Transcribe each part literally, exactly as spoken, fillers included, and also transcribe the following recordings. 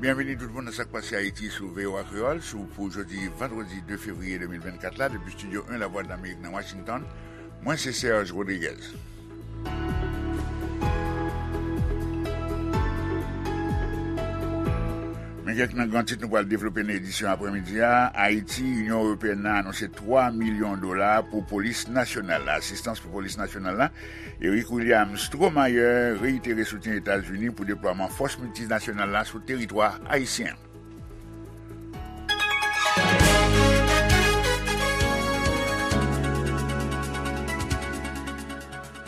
Byenvini tout moun nan Sa k Pase Ayiti sou V O A Kreyòl, sou pou jodi vandredi de fevriye de mil vennkat la, depi Estidyo en Lavwadlamerik nan Washington. Mwen se Serge Rodriguez. Men kèk nan gran tit nou pral devlope nan edisyon aprèmidi a. Ayiti, Inyon Ewopeyèn nan anonse twa milyon dola pou polis nasyonal la, asistans pou polis nasyonal la. Eric William Stromayer reitere soutyen Etazini pou deplwaman fòs miltinasyonal la sou teritwa ayisyen.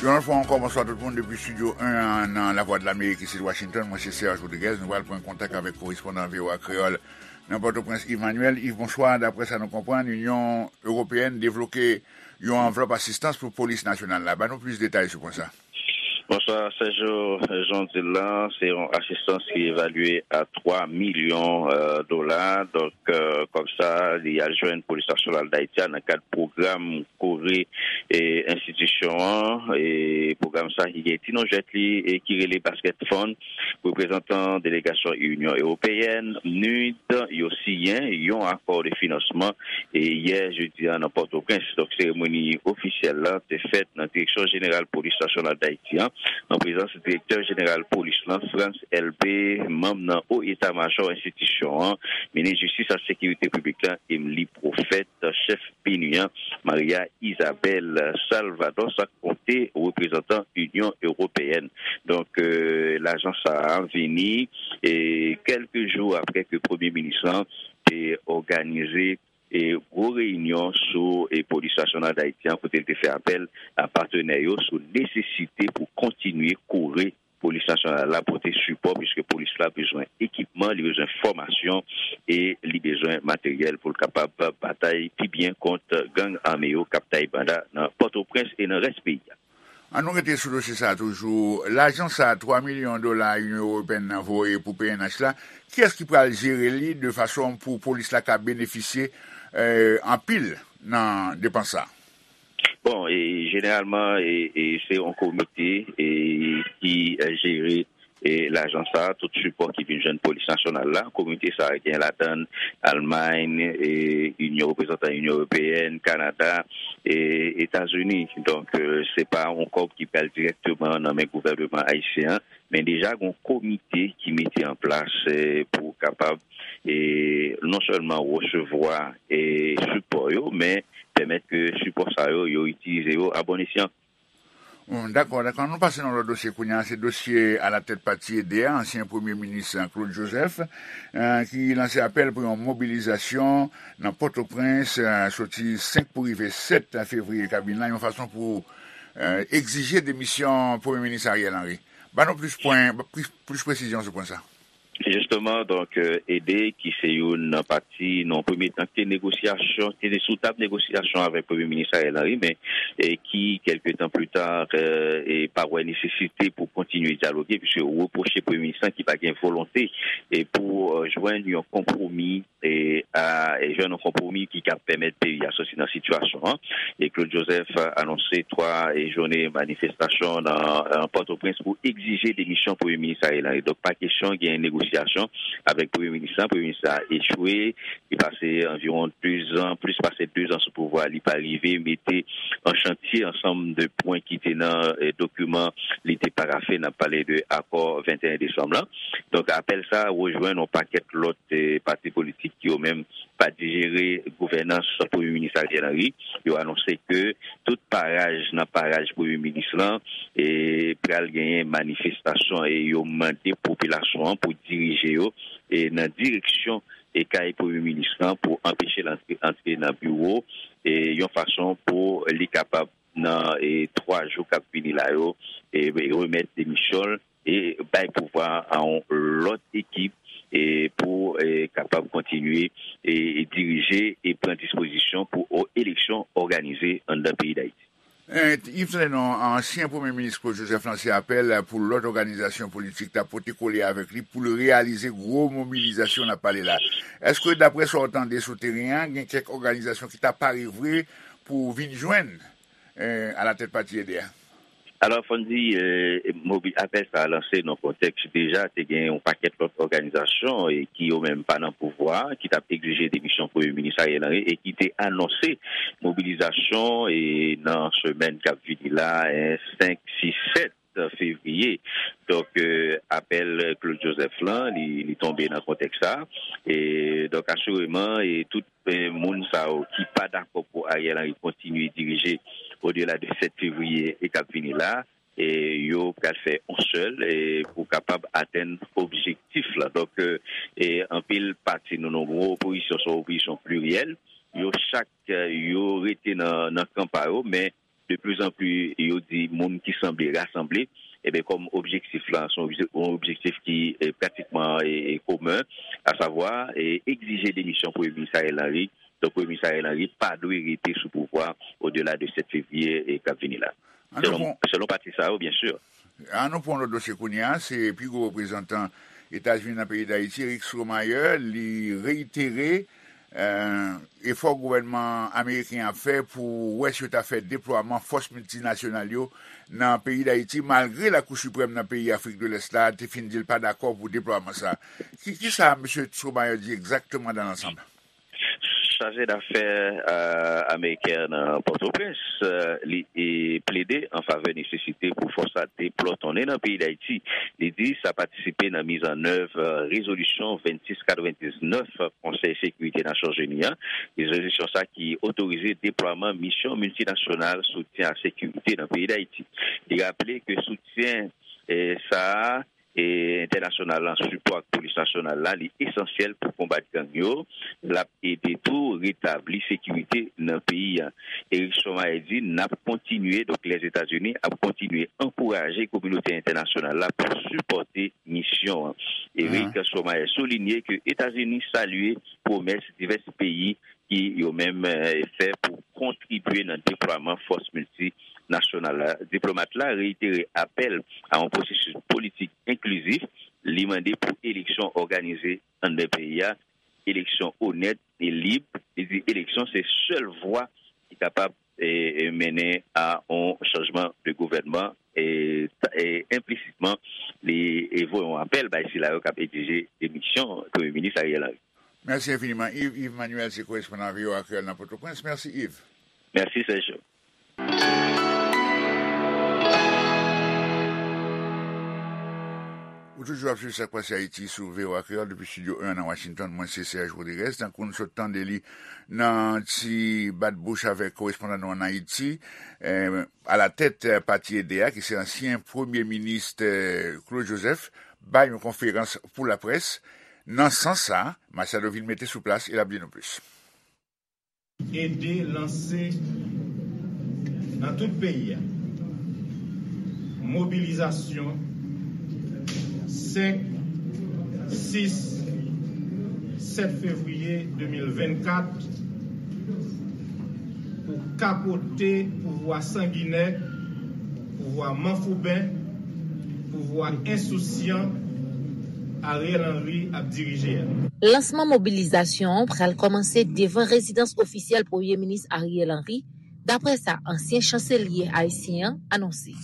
Yon lòt fwa ankò, bonswa tout moun depi Estidyo en an nan Lavwadlamerik isit Washington. Mwen se Serge Rodriguez. Nou pral pran kontak avèk korespondan V O A Kreyòl nan Pòtoprens, Yves Manuel. Yves, bonswa. Daprè sa nou konprann, Inyon Ewopeyèn debloke yon anvlòp asistans pou polis nasyonal la. Ban nou plis detay sou pwen sa. Bonswa, Sergio. Jan w di l la, se yon asistans ki evalye a twa milyon, euh, dola. Donk, euh, kòb sa, li al jwenn Polis Nasyonal Dayiti a nan kad pwogram kore, e, enstitisyon an. E pwogram sa ki gen ti non jwèt li e ki rele Basket Fund. Reprezantan delegasyon Inyon Ewopeyèn, nid, yo siyen yon akò de finansman e yè jedi a nan Pòtoprens. Donk, seremoni ofisyèl la te fèt nan Direksyon Jeneral Polis Nasyonal Dayiti an, an prezans Direktè Jeneral Polis lan, Frantz Elbé, manm nan O Eta Majò enstitisyon an, Minis Jistis ak Sekirite Piblik la, Emmelie Prophète, chèf PNUD an, Maria Isabel Salvador, sa k konte reprezantan Inyon Ewopeyèn. Donk, euh, lajan sa a vini, e, kèlke jou apre ke Premye Minis lan te òganize e gwo reyinyon sou, e, Polis Nasyonal Dayiti an, kote l te fè apèl a patnè yo sou nesesite pou kontinye kore Polis Nasyonal la pote sipò, piske polis la bezwen ekipman, li bezwen fòmasyon e li bezwen materyèl pou l kapab batay pi byen kont gang ame yo k ap tay banda nan Pòtoprens e nan rès peyi a. An nou rete sou dosye sa a toujou. Lajan sa a, twa milyon dola Inyon Ewopeyèn nan voye pou P N H la, kiyès ki pral jere li de fason pou polis la ka benefisye, eh, anpil nan depans sa a? Bon, e jeneralman, e, e se yon komite, e, ki, e, jere, e, lajan sa a, tout sipò ki vin jwenn polis nasyonal la. Komite sa a gen ladann Almay, e, Inyon, reprezantan Inyon Ewopeyèn, Kanada, e Etazini. Donk, e, se pa yon kòb ki pral dirèkteman nan men gouvènman ayisyen an, men deja gen yon komite ki mete an plas, e, pou kapab, e, non sèlman resevwa, e, sipò yo, men pèmèt ke sipò sa yo, yo itilize yo a bon esyan. Hmm, dakò, dakò. Nou pase nan lòt dosye kounye a. Se dosye Alatèt Pati Ede a, ansyen premye minis Claude Joseph, eh, ki lanse apèl pou yon mobilizasyon nan Pòtoprens, eh, soti senk pou rive sèt fevriye k ap vin la, yon fason pou, eh, egzije demisyon premye minis Ariel Henry. Ban nou plis pwen, plis, plis presizyon sou pwen sa. Jisteman, donk, euh, Ede, ki se youn nan pati, nan premye tan, ki te negosyasyon, ki te sou tab negosyasyon avèk Premye Minis Ariel Henry, men, e ki, kèlke tan pli ta, euh, e pa wè nesesite pou kontinye dyaloge, piske yo repwoche Premye Minis lan ki pa gen volonte e pou, euh, jwenn yon konpwomi, e a, e jwenn yon konpwomi ki ka pèmèt peyi a soti nan sitiyasyon an. E Claude Joseph anonse twa, e, jounen manifestasyon nan, nan Pòtoprens pou egzije demisyon Premye Minis Ariel Henry. Donk, pa kesyon gen negosyasyon avèk Premye Minis la. Premye Minis la echwe. Li pase anviwon dezan, plis pase dezan sou pouvwa. Li pa rive mete an chantye ansanm de pwen ki te nan, e, dokiman li te parafe. N ap pale de akò venteyen desanm lan. Donk, apèl sa a rejwenn yon pakèt lòt, e, pati politik ki yo menm pa dijere gouvènans Premye Minis Ariel Henry. Yo anonse ke tout paraj nan paraj Premye Minis lan, e, pral genyen manifestasyon e yo mande popilasyon an pou dirije yo, e, nan direksyon, e, kay Premye Minis lan pou anpeche l antre, antre nan biwo, e, yon fason pou li kapab nan, e, twa jou k ap vini la yo, e, remèt demisyon l e bay pouvwa a yon lòt ekip, e, pou, e, kapab kontinye, e, e dirije e pran dispozisyon pou o-, eleksyon òganize anndan peyi Dayiti. E, Yves Sanon, ansyen Premye Minis Claude Joseph lanse apèl pou lòt òganizasyon politik ta pote kole avèk li pou l reyalize gwo mobilizasyon n ap pale la. Èske, daprè sa w tande sou teren an, gen kèk òganizasyon ki ta pare vre pou vin jwenn, e, alatèt pati Ede a? Alò, fò n di, e, mobi-, apèl sa a lanse nan kontèks deja te gen yon pakèt lòt òganizasyon, e, ki yo menm pa nan pouvwa, ki t ap egzije demisyon Premye Minis Ariel Henry e ki te anonse mobilizasyon, e, nan semèn k ap vini la, e, senk, sis, sèt fevriye. Donk, e, apèl Claude Joseph lan, li, li tonbe nan kontèks sa. E, donk, asireman, e tout, e, moun sa yo ki pa dakò pou Ariel Henry kontinye dirije odela de sèt fevriye e k ap vini la, e, yo pral fè yon sèl, e, pou kapab atenn objektif la. Donk, e, e, anpil pati nou, nou gwo opozisyon, se yon opozisyon pliryèl. Yo chak, e, yo rete nan, nan kan pa yo, men de plus en plus, yo di moun ki sanble rasanble, e ben, kòm objektif la, se yon obje-, yon objektif ki, e, pratikman, e, e, komen, asavwa, e, egzije demisyon Premye Minis Ariel Henry. Donk, Premye Minis Ariel Henry pa dwe rete sou pouvwa odela de sèt fevriye, e, k ap vini la. An nou selon, pran, selon pati sa yo, byen si. An nou pran lòt dosye kounye a, se pi gwo reprezantan Etazini nan peyi Dayiti, Rick Stromayer, li reyitere, e, efò gouvènman ameriken ap fè pou wè si yo ta fè deplwaman fòs miltinasyonal yo nan peyi Dayiti, malgre Lakou Siprèm nan peyi Afrik de Lès la te fin di l pa dakò pou deplwaman sa. Ki, ki sa mesye Stromayer di egzakteman dan lansanm? Chaje dafè, e, ameriken nan Pòtoprens, e, li, e, plede an favè nesesite pou fòs la deplòtonnen nan peyi Dayiti. Li di sa patisipe nan mizannèv, e, rezolisyon vennsis katrevendiznèf Konsèy Sekirite Nasyonzini an. Rezolisyon sa ki otorize deplwaman misyon miltinasyonal soutyen a sekirite nan peyi Dayiti. Li raple ke soutyen, e, sa a e entènasyonal lan, sipò ak polis nasyonal la, li esansyèl pou konbat gang yo. L ap ede tou retabli sekirite nan peyi a. Eric Stromayer di, n ap kontinye, donk Lèzetazini ap kontinye ankouraje kominote entènasyonal la pou sipòte misyon an. Eric Stromayer soulinye ke Etazini salye pwomès divès peyi ki yo menm, e, fè pou kontribye nan deplwaman fòs miltinasyonal la. Diplomat la reyitere apèl a yon pwosesis politik enklizif. Li mande pou eleksyon òganize anndan peyi a, eleksyon onèt e lib. Li di eleksyon se sèl vwa ki kapab, e, e, mennen a yon chanjman de gouvènman. E, ta- e enplisitman, li, e, voye yon apèl bay sila yo k ap egzije demisyon Premye Minis Ariel Henry. Mèsi enfiniman, Yves. Yves Manuel se korespondan V O A Kreyòl nan Pòtoprens. Mèsi, Yves. Mèsi, Sergio. Ou toujou ap swiv Sa k Pase Ayiti sou V O A Kreyòl depi Estidyo en nan Washington. Mwen se Serge Rodriguez. Tankou n sot tande li nan ti bat bouch avèk korespondan nou ann Ayiti, eh, alatèt, eh, pati Ede a, ki se ansyen premye minis, eh, Claude Joseph, bay yon konferans pou laprès. Nan sans sa, Machado vin mete sou plas e l ap di nou plis. Ede lanse nan tout peyi a mobilizasyon senk, sis, sèt fevriye de mil vennkat pou kapote pouvwa sanginè, pouvwa manfouben, pouvwa ensousyan Ariel Henry ap dirije a. Lansman mobilizasyon an pral kòmanse devan rezidans ofisyèl Premye Minis Ariel Henry, daprè sa ansyen chanselye ayisyen an anonse.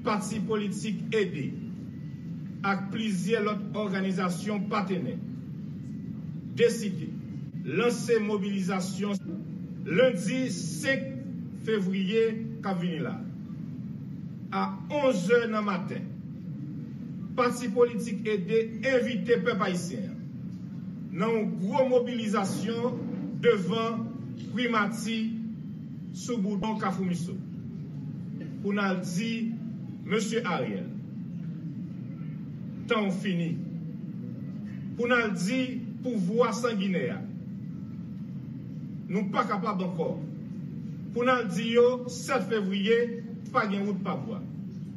Pati politik Ede ak plizyè lòt òganizasyon patenè deside lanse mobilizasyon lendi senk fevriye k ap vini la a onz è nan maten. Pati politik Ede envite pèp ayisyen an nan yon gwo mobilizasyon devan primati sou boudon Kafou Miso pou n al di Mesye Ariel, tan w fini. Pou n al di pouvwa sanginè a, nou pa kapab ankò. Pou n al di yo sèt fevriye, pa gen wout pa bwa.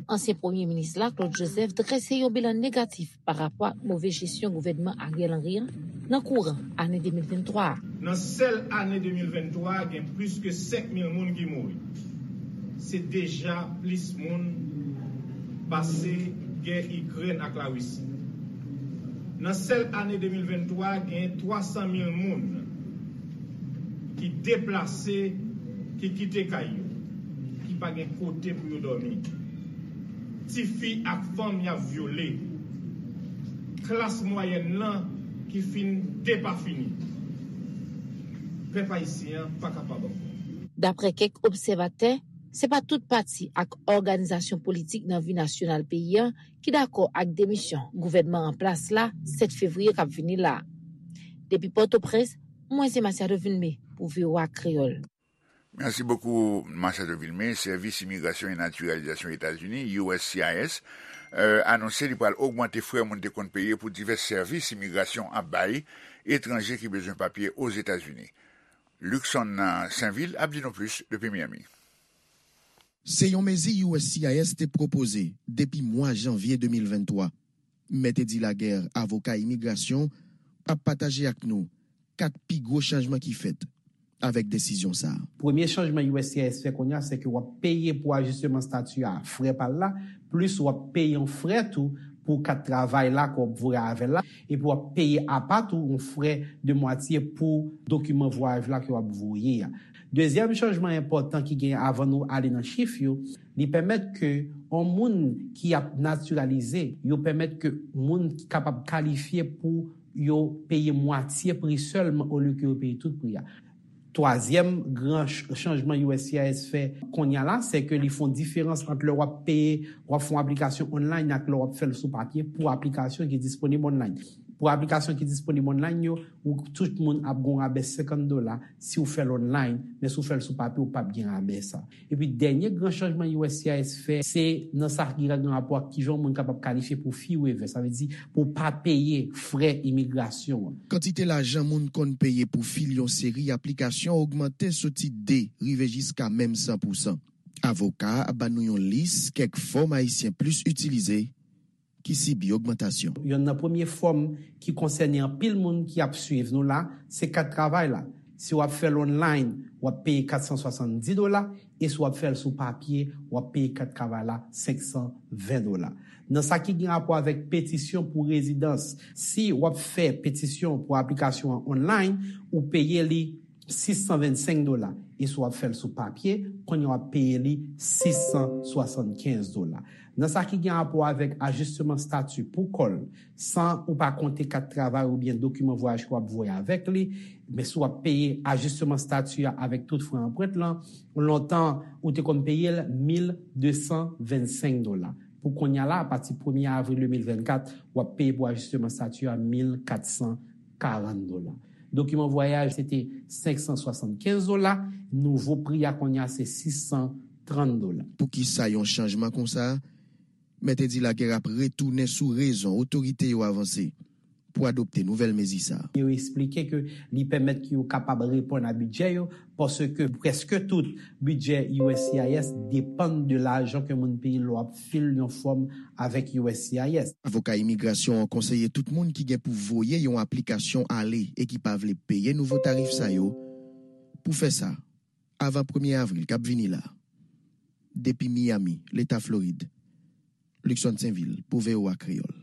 Ansyen premye minis la, Claude Joseph, drese yon bilan negatif pa rapò ak move jesyon gouvènman Ariel Henry an nan kouran ane de mil venntwa a. Nan sèl ane de mil venntwa a, gen plis ke senk mil moun ki mouri. Se deja plis moun pase gè Ikrèn ak Larisi. Nan sèl ane de mil venntwa a, gen twa san mil moun ki deplase, ki kite kay yo, ki pa gen kote pou yo dòmi. Tifi ak fanm y ap vyole. Klas mwayèn lan ki fin depafini. Pèp ayisyen an pa kapab ankò. Daprè kèk obsèvatè, se pa tout pati ak òganizasyon politik nan vi nasyonal peyi a ki dakò ak demisyon gouvènman an plas la sèt fevriye k ap vini la. Depi Pòtoprens, mwen se Masiado Vilmé pou V O A Kreyòl. Mèsi bokou, Machado Vilmé. Sèvis Imigrasyon e Natiralizasyon Etazini, U S C I S, anonse li pral ogmante frè moun te konn peye pou divès sèvis imigrasyon ap bay etranje ki bezwen papye Ozetazini. Luckson Sainvil ap di nou plis depi Miami. Se yon mezi U S C I S te pwopoze depi mwa janvye de mil venntwa. Mèt Edi Laguerre, avoka imigrasyon, ap pataje ak nou kat pi gwo chanjman ki fèt avèk desizyon sa a. Premye chanjman U S C I S fè kounye a, se ke w ap peye pou ajisteman stati a frè pa l la, plis w ap peye yon frè tou pou kat travay la ke w ap voye avè l la, epi w ap peye apa tou yon frè de mwatye pou dokiman vwayaj la ke w ap voye a. Dezyèm chanjman enpòtan ki gen avan nou ale nan chif yo, li pèmèt ke yon moun ki ap natiralize, yo pèmèt ke moun kapab kalifye pou yo peye mwatye pri sèlman olye ke yo peye tout pri a. Twazyèm gran chanjman U S C I S fè kounye a la, se ke li fè yon diferans ant lè w ap peye, w ap fè yon aplikasyon online ak lè w ap fè l sou papye pou aplikasyon ki disponib online. Pou aplikasyon ki disponib online yo, ou tout moun ap gen yon rabè senkant dola si w fè l online, men si w fè l sou papye, ou p ap gen rabè sa. Epi dènye gran chanjman U S C I S fè, se nan sa ki gen rapò ak kijan yon moun kapab kalifye pou fee waiver, sa vle di pou w pa peye frè imigrasyon an. Kantite lajan moun konn peye pou fil yon seri aplikasyon ogmante soti de rive jiska menm san pousan. Avoka a ap ban nou yon lis kèk fòm Ayisyen plis itilize ki sibi ogmantasyon. Yonn nan premye fòm ki konsène anpil moun ki ap swiv nou la, se kat travay la. Si w ap fè l online, w ap peye kat san swasanndi dola, e si w ap fè l sou papye, w ap peye kat travay la senk san ven dola. Nan sa ki gen rapò avèk petisyon pou rezidans, si w ap fè petisyon pou aplikasyon an online, ou peye li sis san vennsenk dola, e si w ap fè l sou papye, kounye a w ap peye li sis san swasannkenz dola. Nan sa ki gen rapò avèk ajisteman stati pou kò l, san ou pa konte kat travay oubyen dokiman vwayaj ke w ap voye avèk li, men si w ap peye ajisteman stati a avèk tout frè anprent lan, lontan ou te konn peye l mil de san vennsenk dola. Pou kounye a la, apati premye avril de mil vennkat, w ap peye pou ajisteman stati a mil kat san karant dola. Dokiman vwayaj se te senk san swasannkenz dola, nouvo pri a kounye a se sis san trant dola. Poukisa yon chanjman konsa? Mèt Edi Laguerre ap retounen sou rezon otorite yo avanse pou adopte nouvèl mezi sa a. Yo eksplike ke li pèmèt ke yo kapab reponn a bidjè yo, paske prèske tout bidjè U S C I S depann de lajan ke moun peye lè w ap fil yon fòm avèk U S C I S. Avoka imigrasyon an konseye tout moun ki gen pou voye yon aplikasyon ale e ki pa vle peye nouvo tarif sa yo, pou fè sa avan premye avril k ap vini la. Depi Miami, Leta Florid, Luckson Sainvil pou V O A Kreyòl.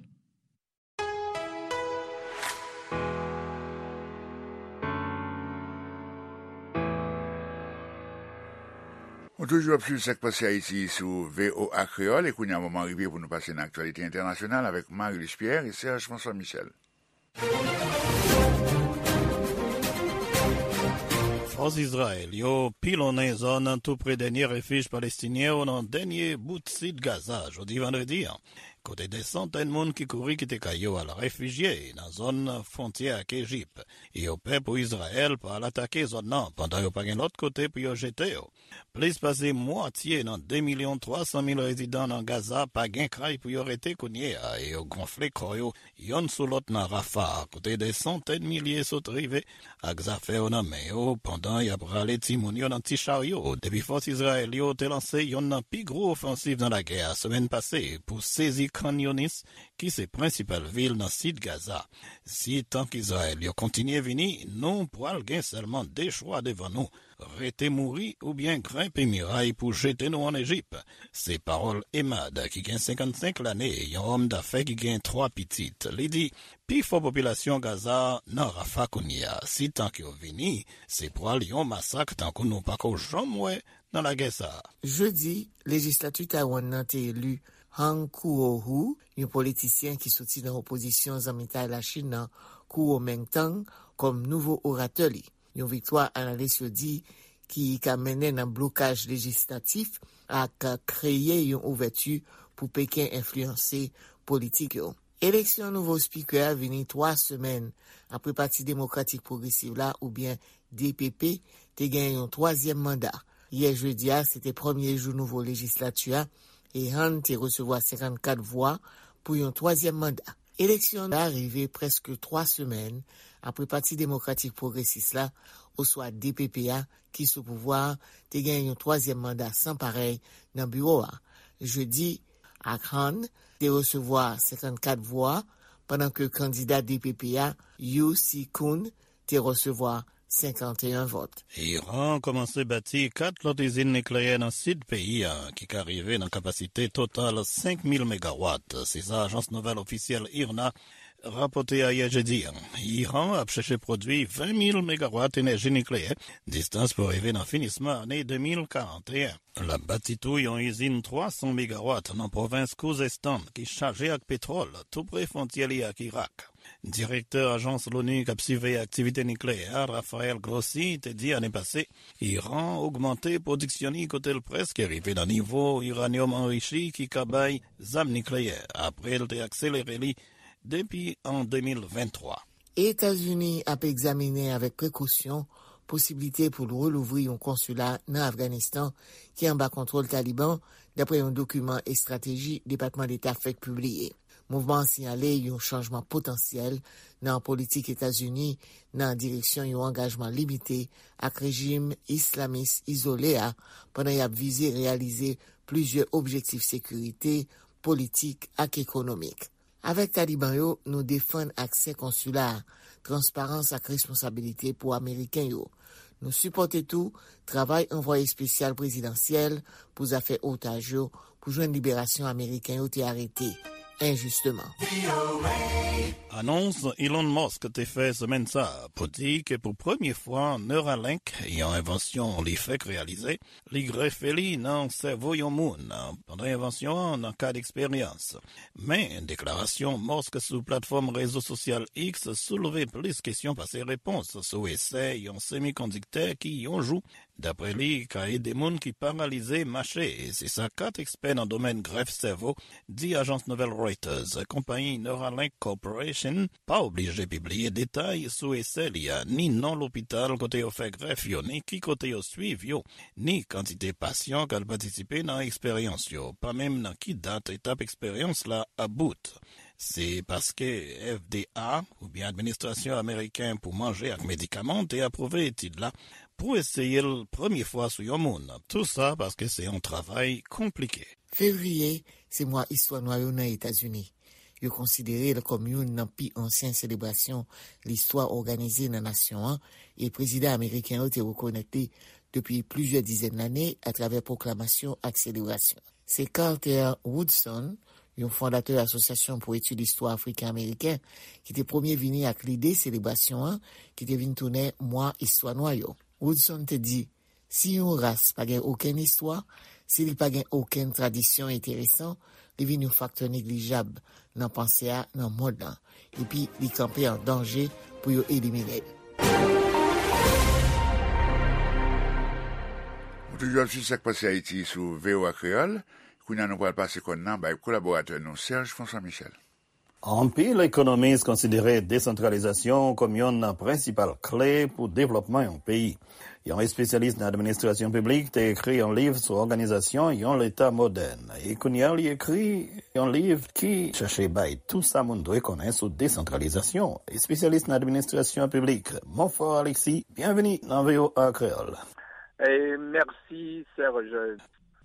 Ou toujou ap swiv Sa k Pase Ayiti sou V O A Kreyòl, e kounye a moman rive pou nou pase nan aktyalite entènasyonal avèk Marie-Luce Pierre e Serge François Michel. Fòs Izrayèl yo pilonnen zòn tou pre dènye refij palestinyen yo nan dènye bout sid Gaza jodi vandredi an, kote dè santèn moun ki kouri kite kay yo al refijye nan zòn fwontyè ak Ejip. Yo pè pou Izrayèl pa al atake zòn nan pandan yo pa gen lòt kote pou yo jete yo. Plis pase mwatye nan de milyon twa san mil rezidan nan Gaza pa gen kay pou yo rete kounye a e yo gonfle kò yo youn sou lòt nan Rafah, kote dè santèn milye sot rive ak zafè yo nan men yo pandan y ap rale timoun yo nan ti charyo depi fòs Izrayèl yo te lanse youn nan pi gwo ofansiv nan lagè a semèn pase pou sezi Khan Younis, ki se prensipal vil nan sid Gaza. Si tank Izrayèl yo kontinye vini, nou pral gen sèlman de chwa devan nou, rete mouri oubyen grenpe miray pou jete nou ann Ejip. Se pawòl Emad, ki gen senkannsenk lane, yon òm dafè ki gen twa pitit. Li di, pifò popilasyon Gaza nan Rafa kounye a. Si tank yo vini, se pral yon masak tankou nou pako janm wè nan lagè sa a. Jedi, lejislati Taiwan nan te eli Han Kuo-hu, yon politisyen ki soti nan opozisyon zanmitay Lachin nan, Kuomintang, kòm nouvo oratè li. Yon viktwa, analis yo di, ki ka mennen nan blokaj lejislatif ak kreye yon ouvèti pou Peken enfliyanse politik yo. Eleksyon nouvo spikè a vini twa semèn apre Pati Demokratik Pwogresis la, oubyen D P P, te gen yon twazyèm manda. Yè jedi a, se te premye jou nouvo lejislati a, e Han te resevwa senkannkat vwa pou yon twazyèm manda. Eleksyon la rive prèske twa semèn apre Pati Demokratik Pwogresis la, oswa D P P a, ki sou pouvwa a, te gen yon twazyèm manda san parèy nan biwo a. Jedi, ak Han te resevwa senkannkat vwa, pandan ke kandida D P P a, Yu Si-kun, te resevwa senkanteyen vòt. Iran kòmanse bati kat lòt izin nikleyè nan sid peyi a, ki ka rive nan kapasite total senk mil megawat. Se sa ajans nouvèl ofisyèl IRNA rapòte ayè jedi a. Iran ap chèche pwodui ven mil megawat enèji nikleyè, distans pou rive nan finisman ane de mil karanteyen. L ap bati tou yon izin twa san megawat nan pwovens Khuzestan ki chaje ak petwòl tou pre fwontyè li ak Irak. Direktè ajans Loni k ap siveye aktivite nikleyè a, Rafael Grossi, te di ane pase, Iran ogmante pwodiksyon li kote l prèske rive nan nivo iranyòm anrichi ki ka bay zam nikleyè, apre l te akselere li depi an de mil venntwa. Etazini ap egzamine avèk prekosyon posiblite pou l relouvri yon konsila nan Afganistan ki anba kontwòl Taliban, dapre yon dokiman estrateji Depatman Deta fèk pibliye. Mouvman an siyale yon chanjman potansyèl nan politik Etazini nan direksyon yon angajman limite ak rejim islamis izole a, pandan y ap vize reyalize plizyè objektif sekirite, politik ak ekonomik. Avèk Taliban yo, nou defann aksè konsila a, transparans ak responsabilite pou Ameriken yo. Nou sipòte tou travay anvwaye espesyal prezidansyèl pou zafè otaj yo, pou jwenn liberasyon Ameriken yo te arete enjisteman. Anons Elon Musk te fè semèn sa a pou di ke pou premye fwa Neuralink, yon envansyon li fèk reyalize, li grefe li nan sèvo yon moun pandan envansyon an nan kad eksperyans. Men, deklarasyon Musk sou platfòm rezo sosyal X soulve plis kesyon pase repons sou esè yon semikondiktè ki, yon jou, dapre li, ka ede moun ki paralize mache. Se sa kat ekspè nan domèn grèf sèvo di ajans nouvèl Reuters. Konpayi Neuralink Corporation pa oblije pibliye detay sou esè li a, ni non lopital kote yo fè grèf yo, ni ki kote yo swiv yo, ni kantite pasyan k al patisipe nan eksperyans yo, pa menm nan ki dat etap eksperyans la ap bout. Se paske F D A, oubyen Administrasyon Ameriken pou Manje ak Medikaman, te apwouve etid la pou eseye l premye fwa sou yon moun. Tou sa paske se yon travay konplike. Fevriye, se mwa istwa nwa yo nan Etazini. Yo konsidere l kòm youn nan pi ansyen selebrasyon listwa òganize nan nasyon an, e prezidan ameriken yo te rekonèt li depi plizyè dizèn lane atravè pwoklamasyon ak selebrasyon. Se Carter Woodson, yon fondatè Asosyasyon pou Etid Istwa Afriken Ameriken, ki te premye vini ak lide selebrasyon an, ki te vin tounen mwa istwa nwa yo. Woodson te di, si yon ras pa gen okenn istwa, si li pa gen okenn tradisyon enteresan, li vin yon faktè neglijab nan panse a nan mond lan, epi li kanpe an danje pou yo elimine l. Ou toujou ap swiv Sa k Pase Ayiti sou V O A Kreyòl. Kounye a, nou pral pase kòn nan bay kolaboratè nou, Serge François Michel. Anpil ekonomis konsidere desantralizasyon kòm youn nan prensipal kle pou devlòpman yon peyi. Yon espesyalis nan administrasyon piblik te ekri yon liv sou òganizasyon yon leta modèn. E kounye a, li ekri yon liv ki chache bay tou sa moun dwe konnen sou desantralizasyon. Espesyalis nan administrasyon piblik, Monfort Alexis, byenveni nan V O A Kreyòl. E mèsi, Serge.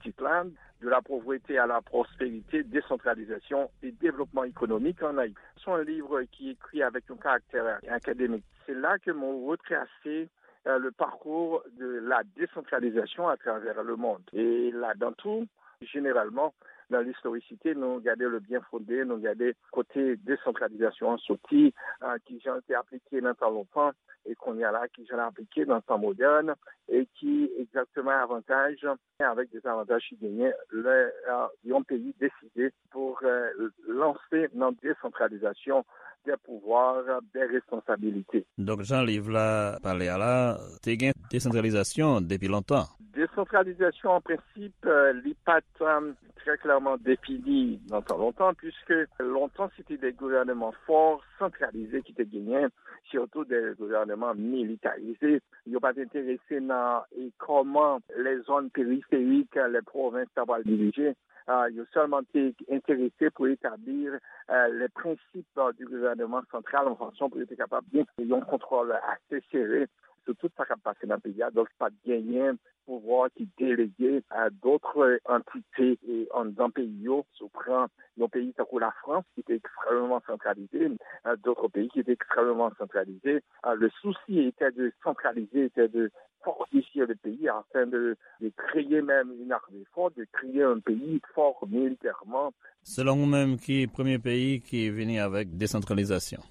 Tit la, De la pauvreté à la prospérité, décentralisation et développement économique en Haïti. Se yon liv ki ekri avèk yon karaktè akademik. Se la ke mwen retrase, euh, le parcours de la décentralisation à travers le monde. E ladan tou, jeneralman, nan listorisite, nou gade le bien fondé, nou gade kote desantralizasyon an soti, euh, ki jan l te aplike nan tan lontan, e kounye a la ki jan l aplike nan tan modèn e ki egzakteman avantaj avèk dezavantaj ki genyen lè yon peyi deside pou lanse nan desantralizasyon de pouvwa, de responsabilite. Donk, jan liv la pale a la, te gen desantralizasyon depi lontan. Desantralizasyon, an prensip, li pa t trè klèman defini nan tan lontan, puiske lontan se te de gouvènman fò, santralize ki te genyen, sitou de gouvènman militarize. Yo pa t enterese nan e kòman lè zòn periferik, lè pwovens ta pral dirije. Yo sèlman te enterese pou etabli le prensip di gouvènman santral, yon fason pou yo te kapab gen yon kontwòl ase sere sou tout sa k ap pase nan peyi a. Donk, pa t genyen pouvwa ki delege a dòt antite anndan peyi yo. Si w pran yon peyi tankou Lafrans, ki te ekstrèmeman santralize, dòt peyi ki te ekstrèmeman santralize, le souci était de centraliser, était de fortifier le pays afin de, de créer même une armée forte, de créer un pays fort militairement. Selon ou menm, ki premye peyi ki vini avèk desantralizasyon?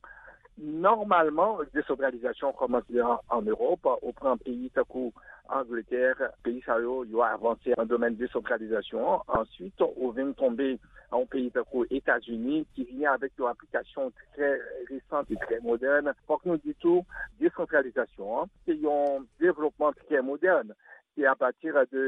Nòmalman, desantralizasyon kòmanse an, an Ewòp. Ou pran peyi tankou Angletè, peyi sa yo, yo avanse nan domèn desantralizasyon an. Answit, ou vin tonbe an yon peyi tankou Etazini, ki vini avèk yon aplikasyon trè resan e trè modèn. Fòk nou di tou, desantralizasyon an, se yon devlopman trè modèn. Se apati de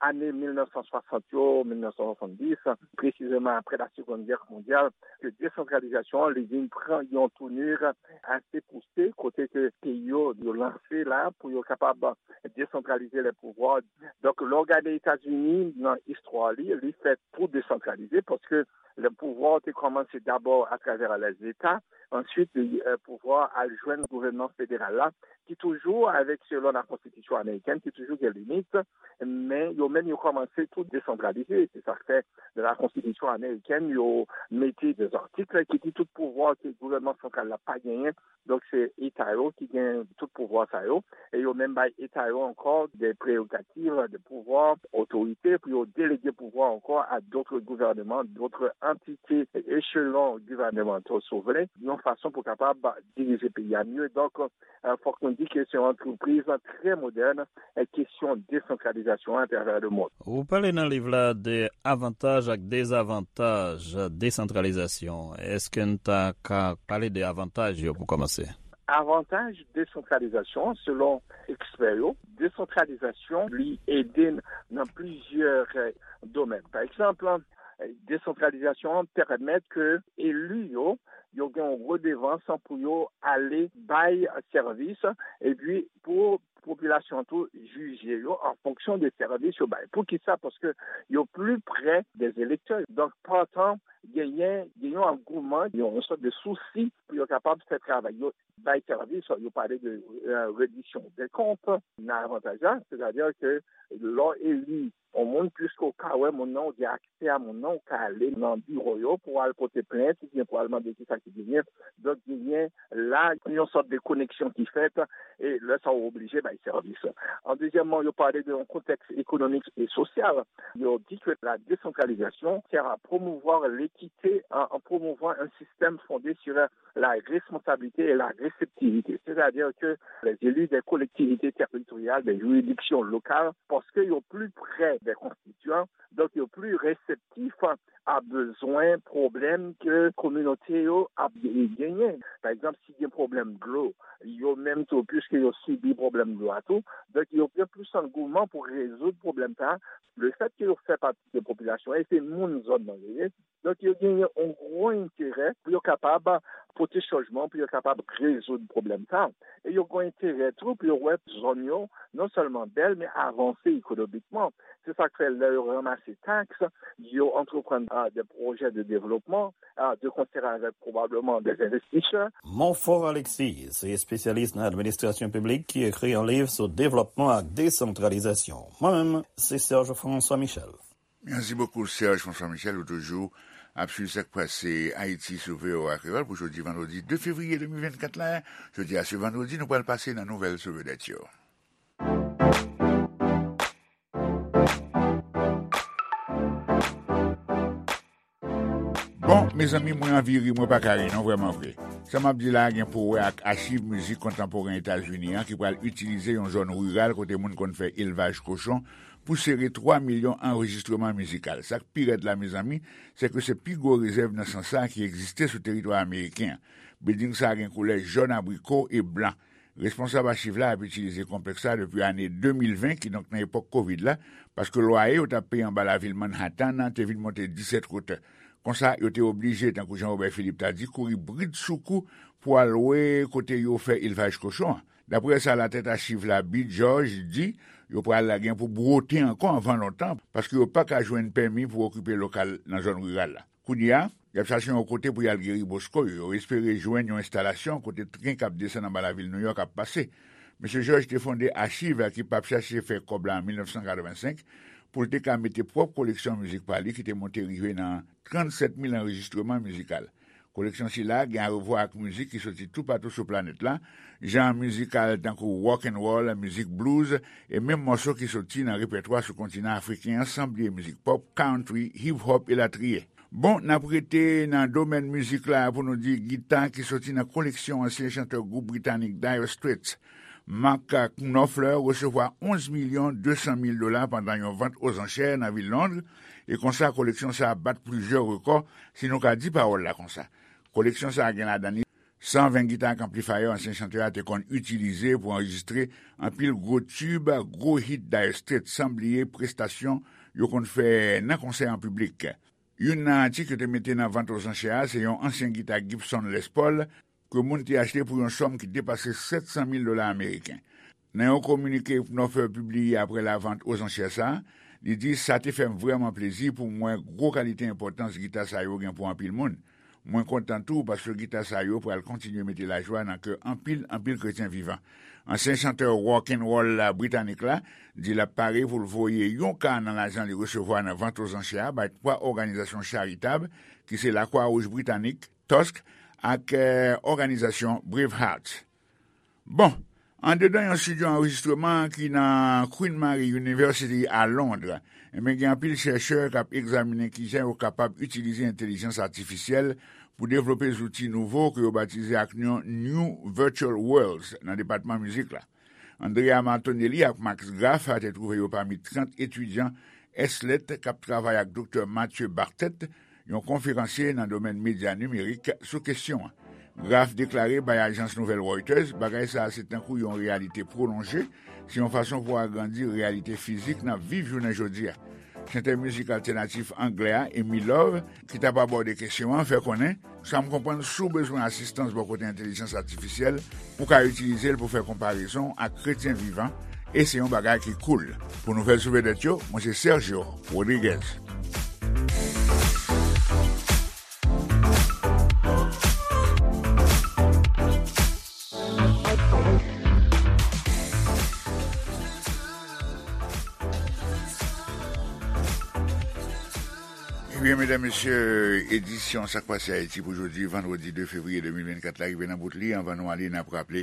ane mil nèf san swasant yo, mil nèf san swasanndis, presizeman apre la Seconde Guerre mondiale, ke desantralizasyon an, li vin pran yon tounur ase pouse, kote ke peyi yo, yo lanse la pou yo kapab desantralize le pouvwa. Donk, lè w gade Etazini, nan istwa li, li fèt pou desantralize, paske le pouvwa te kòmanse dabò atravè lèzeta, answit, pouvwa al jwenn gouvènman federal la, ki toujou, avèk selon la konstitisyon amerikèn, ki toujou gen limit, men yo menm yo kòmanse tou desantralize. Se sa k fè nan la konstitisyon amerikèn, yo mete de zatik ki di tout pouvwa ke gouvènman santral la pa genyen. Donk, se eta yo ki gen tout pouvwa sa yo. E yo menm bay eta yo ankò de prerogativ, de pouvwa, otorite pou yo delege pouvwa ankò a dòt gouvènman, dòt antite, echelon gouvènmantal, si w vle, yon fason pou kapab dirije peyi a mye. Donk, fòk nou di ke se yon antrepriz trè modèn, kesyon desantralizasyon atravè lemonn. Ou pale nan liv la de avantaj ak dezavantaj desantralizasyon. Èske n ta ka pale de avantaj yo pou kòmanse? Avantaj desantralizasyon, selon ekspè yo, desantralizasyon li ede n nan plizyè domèn. Pa egzanp, desantralizasyon an pèmèt ke eli yo, yo gen yon redevans pou yo ale bay sèvis, epi pou popilasyon an tou jije yo an fonksyon de sèvis yo bay. Poukisa? Paske yo pli prè dè elektè. Donk, partan, genyen, genyen yon angouman, yon, yon sòt de sousi pou yo kapab fè travay yo, bay sèvis. Yo pale de rediksyon de kont nan avantaj la, sètadi ke lè w eli yon moun, piske w ka wè moun nan, w gen aksè a moun nan, w ka ale nan biwo yo pou w al pote plent oubyen pou w al mande kisa ki genyen. Donk, genyen la yon sòt de koneksyon ki fèt, e lè sa w oblije bay sèvis. An dezyèmman, yo pale de yon kontèks ekonomik e sosyal. Yo di ke la desantralizasyon sè a pwomouvwa lekite, an, an pwomouvwa yon sistèm fonde sur la responsabilité et la réceptivité, c'est-à-dire que les élus des collectivités territoriales, des juridictions locales, paske yo pli prè dè konstityan, donk yo pli reseptif a bezwen, pwoblèm ke kominote yo ap genyen. Pa egzanp, si gen pwoblèm dlo, yo menm tou, piske yo sibi pwoblèm dlo a tou, donk yo gen plis angouman pou rezoud pwoblèm sa a. Le fèt ke yo fè pati de popilasyon an, e se moun zòn nan yo ye, donk, yo genyen yon gwo enterè pou yo kapab pote chanjman, pou yo kapab rezoud pwoblèm sa a. E yo gen enterè tou pou yo wè zòn yo non sèlman bèl, men avanse ekonomikman. Se sa k fè, lè yo ranmase taks, yo antreprann, a, de pwojè de devlopman, a, de konsè avèk pwobableman de envestisè. Monfort Alexis se espesyalis nan administrasyon piblik ki ekri yon liv sou devlòpman ak desantralizasyon. Mwen menm, se Serge François Michel. Mèsi bokou, Serge François Michel. Ou toujou ap swiv sa k pase Ayiti sou V O A Kreyòl pou jodi vandredi de fevriye de mil vennkat la. Jodi a, se vandredi, nou pral pase nan nouvèl sou vedèt yo. Bon, mezanmi, mwen anvi ri, mwen pa ka ri non, vrèman vre. Sa m ap di la a gen pou wè ak achiv mizik kontanporen Etazini an ki pral itilize yon zòn riral kote moun konn fè elvaj kochon pou sere twa milyon anrejistreman mizikal. Sa k pi rèd la, mezanmi, se ke se pi gwo rezèv nan sans sa a ki egziste sou teritwa ameriken an. Bilding sa a gen koulè jòn abriko e blan. Responsab achiv la ap itilize konplèks la depi ane de mil ven, kidonk nan epòk kovid la, paske lwaye yo t ap peye anba lavil Manhattan an te vin monte disèt wotè. Konsa, yo te oblije, tankou Jean Robert Philippe ta di, kouri brid sou kou pou al lwe kote yo fè elvaj kochon an. Daprè sa latèt achiv la, Bill George, di, yo pral gen pou bwote ankò anvan lontan, paske yo pa ka jwenn pèmi pou okipe lokal nan zòn riral la. Kounye a, y ap chache yon kote pou y al geri bosko yo. Yo espere jwenn yon enstalasyon kote tren k ap desann anba lavil Nouyòk ap pase. Mesye George te fonde achiv ki p ap chache fè kòb la an mil nèf san katrevensenk pou l te ka mete pwòp koleksyon mizik pa li ki te monte rive nan trannsèt mil anrejistreman mizikal. Koleksyon sila gen arevwa ak mizik ki soti toupatou sou planèt la, jan mizikal tankou rock and roll, mizik blues, e menm mòso ki soti nan repètwa sou kontinan afriken an, san bliye mizik pòp, country, hip hop, elatriye. Bon, n ap rete nan domèn mizik la pou nou di gita ki soti nan koleksyon ansyen chantè gwoup britanik Dire Straits. Mark Knopfler resevwa onz milyon de san mil dola pandan yon vant ozanchè nan vil Londres, e konsa koleksyon sa a bat plizyè rekò, si nou ka di pawòl la konsa. Koleksyon sa a gen ladan li san ven gita ak anplifayè ansyen chantè a te konn itilize pou anrejistre anpil gwo tib, gwo hit Dire Straits, san bliye prestasyon yo konn fè nan konsè an piblik. Youn nan atik yo te mete nan vant ozanchè a se yon ansyen gita Gibson Les Paul ke moun te achte pou yon sòm ki depase sèt san mil dola ameriken. Nan yon kominike Knopfler pibliye apre lavant ozanchè sa a, li di, "Sa te fè m vrèman plezi pou m wè gwo kalite enpòtans gita sa yo gen pou anpil moun. Mwen kontan tou paske gita sa yo pral kontinye mete lajwa nan kè anpil, anpil kretyen vivan." Ansyen chantè rock and roll la britanik la di l ap pare pou l voye yon ka nan lajan li resevwa nan vant ozanchè a bay twa òganizasyon charitab ki se Lakwa Wouj Britanik, Tusk, ak, eh, òganizasyon Bravehearts. Bon, andedan yon estidyo anrejistreman ki nan Queen Mary University a Londres, enben, gen anpil chèchè k ap egzaminen kijan yo kapab itilize entèlijans atifisyèl pou devlope zouti nouvo ke yo batize ak non New Virtual Worlds nan depatman mizik la. Andrea Martonelli ak Max Graf te twouve yo pami trant etidyan S L E T k ap travay ak Doktè Mathieu Bartet, yon konferansye nan domèn medya nimerik, sou kesyon an. Graf deklare bay ajans nouvèl Reuters, bagay sa a se tankou yon reyalite pwolonje, se yon fason pou agrandi reyalite fizik n ap viv jounen jodi a. Chantè mizik altènatif anglè a, Amy Love, ki t ap abòde kesyon an, fè konnen, "Sa m konprann, si w bezwen asistans bò kote entèlijans atifisyèl, ou ka itilize l pou fè konparezon ak kretyen vivan, e se yon bagay ki cool." Pou nouvèl sou vedèt yo, mwen se Sergio Rodriguez. Ebyen, medam, mesye, edisyon Sa k Pase Ayiti pou jodi, vandredi de fevriye de mil vennkat la, rive nan bout li. Anvan nou ale, n ap raple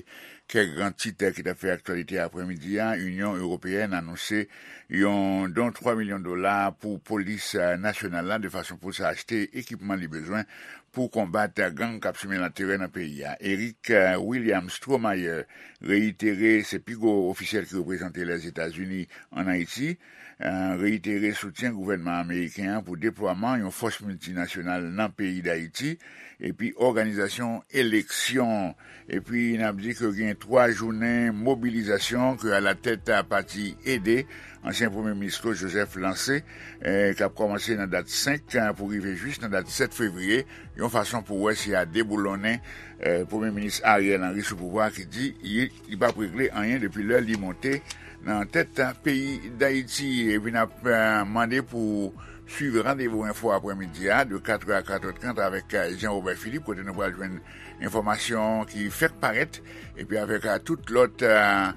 kèk gran tit ki t ap fè aktyalite aprèmidi a. Inyon Ewopeyèn anonse yon don twa milyon dola pou polis, eh, nasyonal la, de fason pou sa achte ekipman li bezwen pou konbat gang k ap simen laterè nan peyi a. Eric, eh, William Stromayer reyitere, se pi gwo ofisyèl ki reprezante Lèzetazini ann Ayiti, eh, reyitere soutyen gouvènman ameriken an pou deplwaman yon fòs miltinasyonal nan peyi Dayiti, epi òganizasyon eleksyon. Epi n ap di ke gen twa jounen mobilizasyon ke alatèt pati EDE, ansyen premye minis Claude Joseph lanse, eh, k ap kòmanse nan dat senk, eh, pou rive jis nan dat sèt fevriye, yon fason pou wè si y a deboulonnen, eh, premye minis Ariel Henry sou pouvwa a ki di li, li p ap regle anyen depi lè li monte nan tèt peyi Dayiti. Epi n ap, eh, mande pou swiv Randevou Enfo aprèmidi a, de katrè a katrè trant avèk, eh, Jean Robert Philippe, kote nou pral jwenn enfòmasyon ki fèk parèt, epi avèk, eh, tout lòt, eh,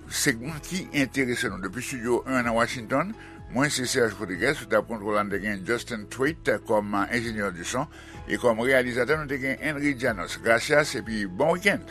segman ki enterese nou. Depi Estidyo en nan Washington, mwen se Serge Rodriguez, sou tab kontwòl la, n te gen Justin Twait kòm, eh, enjenyè di son, e kòm reyalizatè, nou te gen Henry Janos. Gracias, epi bon wikenn!